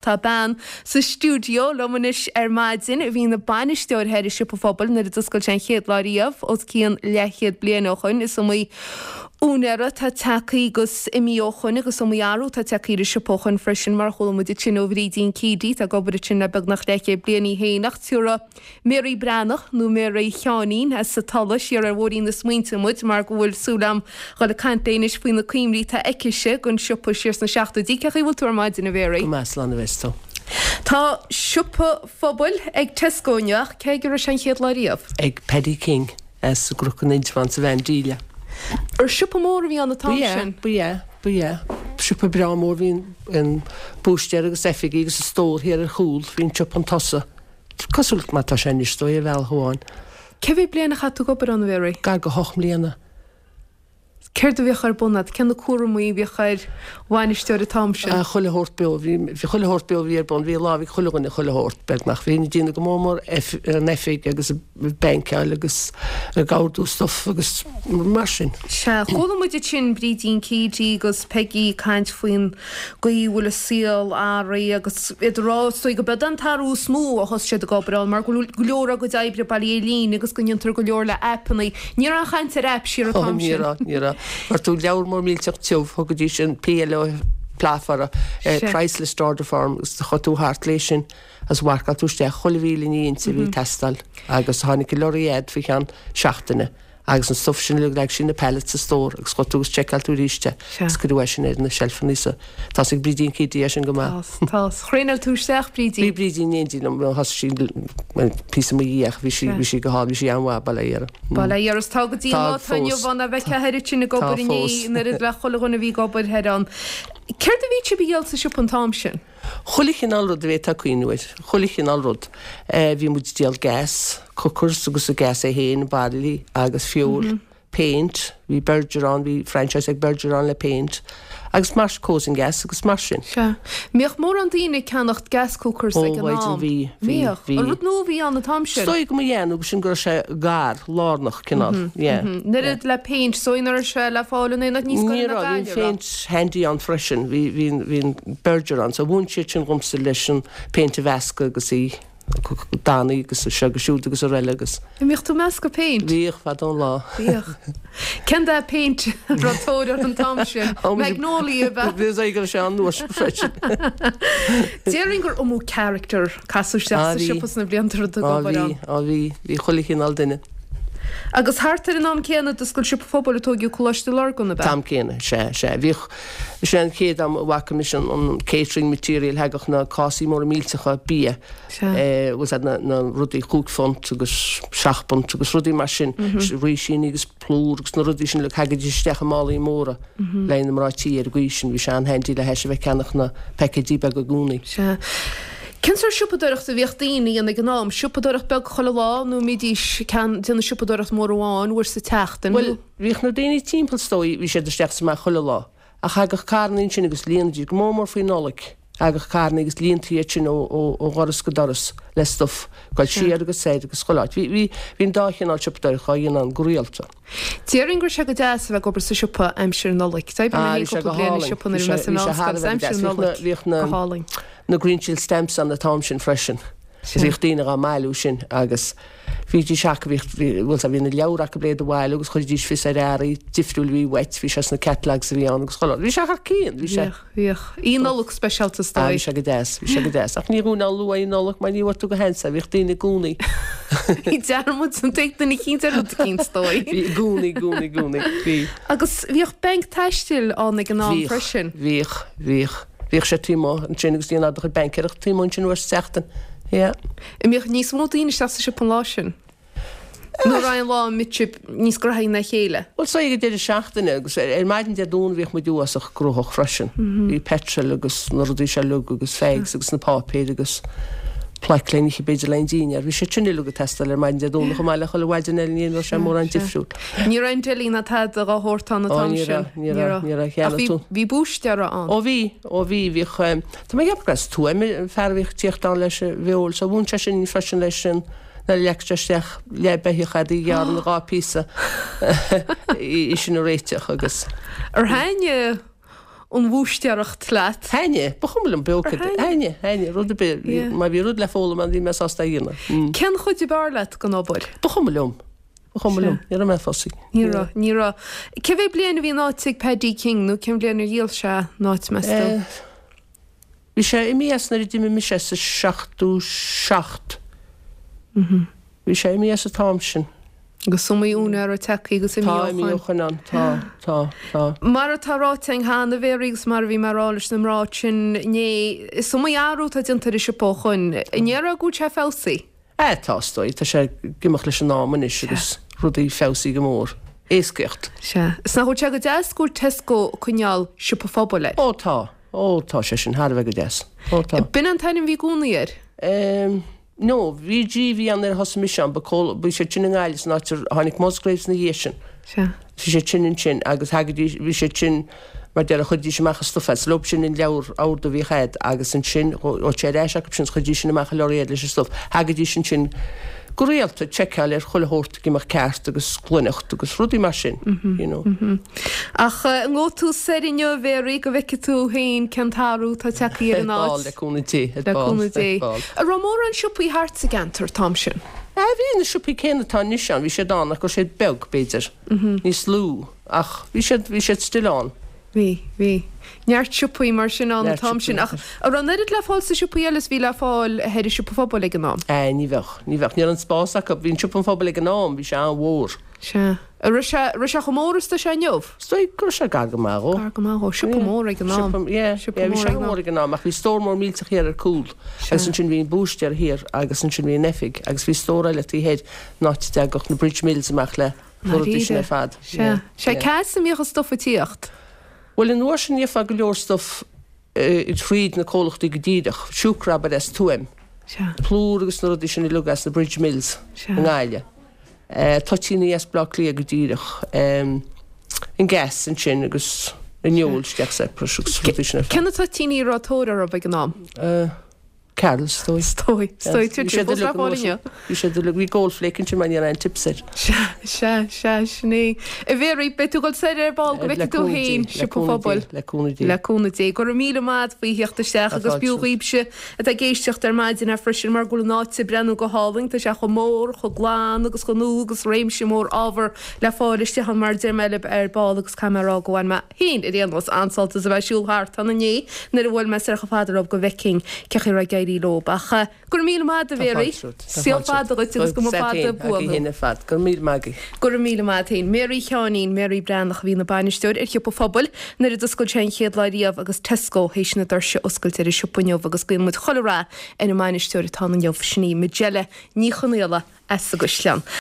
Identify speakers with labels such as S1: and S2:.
S1: Tá bean sa stiúideo liom anois ar maidin a bhí ina bainisteoir thoir i Siopa Phobail nuair a d'oscail sé an chéad lá riamh os cionn leathchéad bliain ó shoin. Is iomaí úinéara atá tagtha agus imithe ó shoin agus iomaí athrú atá tagtha ar an siopa ó shoin freisin mar a chuala muid ansin ó Bhrídín Keady atá ag obair ansin le beagnach leathchéad bliain í féin ach tiúrfaidh Mary Breathnach, nó Mary Sheáinín, as an Tulaigh, siar ar bhóithrín na smaointe muid mar go bhfuil súil a'm dhul ag caint léi anois faoi na cuimhní atá aicise den siopa siar sna seachtóidí. Cén chaoi a bhfuil tú ar maidin, a Mhary?
S2: Go maith, slán a bheas tú.
S1: Tá siopa phobail ag Tesco inniu ach cé aige a raibh sé an chéad lá riamh?
S2: Ag Paddy King as an gCnoc in Indreabhán sa Mheán Díle.
S1: Ar siopa mór a bhí ann an t-am sin?
S2: Ba ea, ba ea, ba ea. Siopa breá mór, bhí an búistéir agus oifigí agus an stór thiar ar chúl, bhí an siopa chun tosaigh. Cosúil mar tá sé anois, is dóigh, ar bhealach amháin.
S1: Cé mhéad bliain a chaith tú ag obair ann, a Mhary?
S2: Gar go hocht mbliana.
S1: Céard a bhíodh ar bun agat? Cé na cúramaí a bhíodh ar bhainisteoir an t-am sin?
S2: Ah, chuile shórt beo. Bhí, bhí chuile shórt beo a bhí ar bun. Bhí lámh ag chuile dhuine, chuile shórt, beagnach. Bhínn ag déanamh go mór mór an oifig agus ag bainceáil agus ag ordú stuff agus mar sin.
S1: Sea, chuala muid ansin Brídín Keady agus Peggy ag caint faoin gcaoi a bhfuil an saol athraithe agus iad ag rá is dóigh go b'eod an t-athrú is mó ó thosaigh siad ag obair ann mar go bhfuil go leor dá gcuid oibre bailithe ar líne agus go ndéantar go leor le aipeanna. Ní raibh aon chaint ar aip siar an t-am
S2: sin. Ní raibh, ní raibh. Fuair tú leabhar mór millteach tiubh, thugaidís an PLO PLAF orthu, Price List Order Form, agus chuaigh tú thart léi sin agus mharcáil tú isteach chuile mhíle ní inti a bhí ag teastáil agus tháinig an lorry agat faoi cheann seachtaine. Agus an stuff sin uilig, leag sí na pallets sa stór agus chuaigh tú agus tseiceáil tú arís é agus cuireadh é sin ar na seilfeanna so tá 'fhios ag Brídín Keady é sin go maith.
S1: Tá, tá. Thraenáil tú isteach Brídín?
S2: Bhí Brídín in éindí liom, thosaigh sí píosa i mo dhiaidh ach bhí sí, bhí sí go hálainn, bhí sí an-mhaith, bail ó Dhia uirthi.
S1: Bail ó Dhia uirthi. Tá go dtí an lá atá inniu ann a bheith thoir ansin ag obair inné an oiread le chuile dhuine a bhí ag obair thoir ann. Céard a bhí sibh a dhíol sa siopa an t-am sin?
S2: Chuile chineál rud a bhféadfá cuimhniú air. Chuile chineál rud. Bhí muid ag díol gas, cookers agus an gas é féin, bairillí agus fuel, paint, bhí Berger ann, bhí franchise ag Berger ann le paint agus mar, coals and gas agus mar sin.
S1: Sea. Mbíodh mórán daoine ag ceannacht gas cookers
S2: Ó,
S1: ag an
S2: mhaighdean,
S1: am?
S2: bhí, bhí,
S1: Bhíodh.
S2: bhí.
S1: An rud nua a bhí ann an t-am
S2: Is
S1: sin?
S2: dóigh go mba ea nó sin go raibh sé gar, lárnach, cineál, yeah.
S1: An oiread le péint, is dóigh nach raibh sé le fáil in aon áit níos
S2: Ní
S1: gaire ná
S2: raibh, bhí an
S1: Gaillimh, raibh?
S2: phéint handy ann freisin, bhí, bhí, bhí an Berger ann, so mhúin siad sin dhomsa leis an péint a mheascadh agus í dannaí agus seo agus siúd agus araile agus.
S1: An mbíodh tú ag meascadh péint?
S2: Bhíodh, fadó an lá.
S1: Bhíodh. Cén dath péint a raibh tóir air an t-am sin? Magnolia ab ea?
S2: Bhí a fhios go raibh sé an uair sin freisin.
S1: Déarfainn gur iomaí character casadh isteach
S2: Á
S1: sa
S2: bhí.
S1: siopa sna blianta a raibh tú ag
S2: Á
S1: obair
S2: bhí,
S1: ann.
S2: á bhí, bhí chuile chineál duine.
S1: Agus thart ar an am céanna d'oscail Siopa Phobail a tóigeadh Coláiste Lurgan, ab ea?
S2: T-am céanna, sea, sea. Bhíodh, sin an chéad am a bhfaca mise an, an catering material, thagadh na cásaí móra millteacha bia,
S1: Sea.
S2: eh, bhfuil 's a'd na, na rudaí chúig phunt agus seacht bpunt agus rudaí mar sin, rísíní agus plúr agus na rudaí sin uilig, thagaidís isteach i málaí móra le haghaidh na mná tí ar an gcaoi sin, bhí sé an-handy le hais a bheith ag ceannach na paicéidí beaga i gcónaí.
S1: Sea. Cén sórt siopadóireachta a bhíodh daoine a dhéanamh ag an am? Siopadóireacht beag chuile lá nó an mbídís ag déanamh siopadóireacht mór amháin uair sa tseachtain?
S2: Bhuel, bhíodh na daoine timpeall is dóigh, bhí siad isteach is amach chuile lá. Ach thagadh carrannaí ansin agus líonaidís, go mór mór faoi Nollaig, thagadh carrannaí agus líontaí iad sin ó, ó, ó dhoras go doras le stuff, ag dul siar agus soir agus chuile áit. Bhí, bhí, bhí an dá chineál siopadóireacht á dhéanamh ann go rialta.
S1: Déarfainn go raibh sé go deas a bheith ag obair sa siopa aimsir Nollag. D'oibrigh mé
S2: Ah,
S1: féin
S2: bhí sé
S1: cúpla
S2: go
S1: bliain i
S2: hálainn.
S1: siopa nuair
S2: Bhí
S1: a bhí mé
S2: sé,
S1: sa
S2: bhí sé thar
S1: mheánscoil
S2: a
S1: agus
S2: bheith go
S1: aimsir
S2: deas. Bhíodh na,
S1: Nollag
S2: bhíodh na,
S1: go hálainn.
S2: na Greenchill stamps ann an t-am sin freisin.
S1: Sea.
S2: Bhíodh daoine dhá mbailiú sin agus bhídís acu, bhíodh, bhí, bhuel, bhí na leabhair acu le iad a bhailiú agus chuiridís fios ar earraí difriúil a bhí uait, bhí sé sna catalogues a bhí ann agus chuile rud. Bhí sé thar cionn, bhí sé.
S1: Bhíodh, bhíodh. Oíche Nollag speisialta is
S2: Ah,
S1: dóigh.
S2: bhí sé go deas, bhí sé go deas. Ach ní dhúinn ann luath Oíche Nollag mar ní bhfuair tú go hansa, bhíodh daoine i gcónaí.
S1: Bhí dearmad an ag duine eicínt ar rud eicínt is dóigh.
S2: Bhí i gcónaí, i gcónaí, i gcónaí, bhí.
S1: Agus bhíodh banc taistil ann ag an am
S2: Bhíodh,
S1: freisin.
S2: bhíodh, bhíodh. Bhíodh sé taobh amuigh ansin agus déanadh do chuid baincéireachta taobh amuigh ansin uair sa tseachtain. Yeah.
S1: An mbíodh níos mó daoine isteach sa siopa an lá sin? Nó an raibh an lá a mbíodh sibh níos graithí ná a chéile?
S2: Bhuel, so ag an deireadh seachtaine agus ar maidin Dé Domhnaigh bhíodh muid uafásach gnóthach freisin. Bhí petrol agus na rudaí seo uilig agus fags agus na páipéir agus plaic le n-ithe b'fhéidir le an dinnéar. Bhí sé sin uilig ag teastáil ar maidin Dé Domhnaigh chomh maith le chuile mhaidin eile ní raibh sé mórán difriúil.
S1: Ní raibh an deli ná tada dhá shórt ann an
S2: Ó
S1: t-am
S2: ní
S1: sin.
S2: raibh, ní raibh, ní raibh,
S1: Ach
S2: cheannaigh
S1: bhí,
S2: tú.
S1: bhí búistéara ann.
S2: Ó bhí, ó bhí, bhíodh, tá mé ag ceapadh gur as Tuaim an fear a bhíodh ag tíocht ann leis an bhfeoil so mhúin sé sin freisin leis an nuair a leagfadh sé isteach leath beithíoch a'd í ghearradh ina dhá phíosa í sin a réiteach agus.
S1: Ar thaitnigh. an bhúistéireacht leat.
S2: Thaitnigh, ba chuma liom pé acu. Thaitnigh, thaitnigh, rud ar bith. Má bhí rud le foghlaim ann bhí mé sásta é a dhéanamh.
S1: Cén chuid ab fhearr leat den obair?
S2: Ba chuma liom. Ba chuma liom. Ní raibh mé fussy.
S1: Ní raibh, ní raibh. Cé mhéad bliain a bhí an áit ag Paddy King nó cén bhliain ar dhíol sé an áit meas tú?
S2: Bhí sé imithe as nuair a d'imigh mise sa 77. Bhí sé imithe as an t-am sin.
S1: Agus is iomaí úinéir atá tagtha agus imithe ó
S2: shoin. Tá imithe ó shoin ann, tá, tá, tá.
S1: Mar atá ráite againn cheana, a Mhéaraí, agus mar a bhí mé a rá leis na mná sin inné, is iomaí athrú atá déanta ar an siopa ó shoin. An ndéarfá go bhfuil sé feabhsaithe?
S2: Ah, tá, is dóigh. Tá sé ag imeacht leis an am anois agus rudaí feabhsaithe go mór. Éascaíocht.
S1: Sea. Is nach bhfuil sé go deas go bhfuil Tesco ag coinneáil Siopa Phobail air?
S2: Ó tá. Ó tá sé sin thar a bheith go deas. Ó tá.
S1: B'in an t-ainm a bhí i gcónaí air?
S2: Em, no, VG a bhí ann nuair a thosaigh mise ann, ba comhla, bhí siad sin i nGaillimh san áit ar tháinig Musgraves ina dhiaidh sin.
S1: Sea.
S2: Bhí siad sin ansin agus thagaidís, bhí siad sin, mar déarfá, chuiridís amach an stuif as, leob sin an leabhar ordú a bhíodh a'd agus ansin ghabhadh sé ar ais acu sin is chuiridís sin amach an lorry leis an stuif. Thagaidís ansin go rialta ag seiceáil ar chuile shórt ag imeacht ceart agus glaineacht agus rudaí mar sin, you know.
S1: Ach an ngabhfaidh tú soir inniu, a Mhéaraí, go bhfeicfidh tú féin cén t-athrú atá tagtha ar an
S2: áit? Ar ball, le cúnamh Dé, ar ball,
S1: Le cúnamh Dé. An raibh mórán siopaí thart sa gceantar an t-am sin?
S2: Ah, bhí na siopaí céanna atá anois ann, bhí siad ann ach go raibh siad beag, b'fhéidir, níos lú, ach bhí siad, bhí siad still ann.
S1: Bhí, bhí. Neart siopaí mar sin ann an t-am sin ach an raibh an oiread le fáil sna siopaí eile is bhí le fáil thoir i Siopa Phobail ag an am?
S2: Eh, ní bheadh, ní bheadh. Ní raibh an spás acu. Bhí an Siopa an Phobail ag an am, bhí sé an-mhór.
S1: Sea. An raibh sé, raibh sé chomh mór is atá sé inniu?
S2: Is dóigh go raibh sé gar go maith dhó.
S1: Gar go maith dhó. Siopa mór ag an am.
S2: Siopa, yeah, Siopa yeah, bhí mór sé ag an am. an-mhór ag an am ach bhí stór mór millteach thiar ar cúl Sea. agus ansin bhí an búistéir thiar agus ansin bhí an oifig agus bhí stór eile taobh thoir an áit a dtagadh na Bridge Mills amach le na rudaí sin ar fad.
S1: Sea. Sea, cá as a mbíodh an stuif ag tíocht?
S2: Bhuel, an uair sin gheofá go leor stuif thríd na comhlachtaí go díreach. Siúcra, abair, as Tuaim.
S1: Sea.
S2: Plúr agus na rudaí sin uilig as na Bridge Mills
S1: Sea.
S2: i nGaillimh. Toitíní as Bleá Cliath go díreach. An gas ansin agus an fheoil isteach separate agus rudaí sin ar
S1: fad. Cé na toitíní a raibh tóir orthu ag an am?
S2: Carrolls, is dóigh.
S1: Is dóigh. Is dóigh. Tá siad fós le fáil inniu.
S2: Bhí siad uilig, bhí Gold Flake ansin mar ní raibh aon tips air.
S1: Sea, sea, sea, sin é. A Mhéaraí, beidh tú ag dul soir ar ball go bhfeicfidh tú féin Siopa Phobail.
S2: Le cúnamh Dé.
S1: Le cúnamh Dé. Go raibh míle maith agat faoi theacht isteach agus b'fhiú dhaoibhse atá ag éisteacht ar maidin é freisin mar go bhfuil an áit ag breathnú go hálainn. Tá sé chomh mór, chomh glan agus chomh nua agus réimse mór ábhar le fáil istigh ann mar a deir mé libh ar ball agus caithfidh mé a rá go bhain mé féin ar aon nós, an-sult as a bheith ag siúl thart ann inné nuair a bhuail mé soir chomh fada leo go bhfeicfinn cé chaoi a raibh ag éirí leo. Ach go raibh míle maith agat, a Mhéaraí. Saol fada dhuit agus go mba fada buan thú.
S2: Go raibh míle maith agaibh.
S1: Go raibh míle maith agat féin. Mary Sheáinín, Mary Breathnach a bhí ina bainisteoir ar Shiopa Phobail nuair a d'oscail sé an chéad lá riamh agus Tesco théis na doirse a oscailt ar an siopa inniu agus guíonn muid chuile rath ar an mbainisteoir atá ann inniu, sin í Majella Ní Chonaola as an gCaisleán.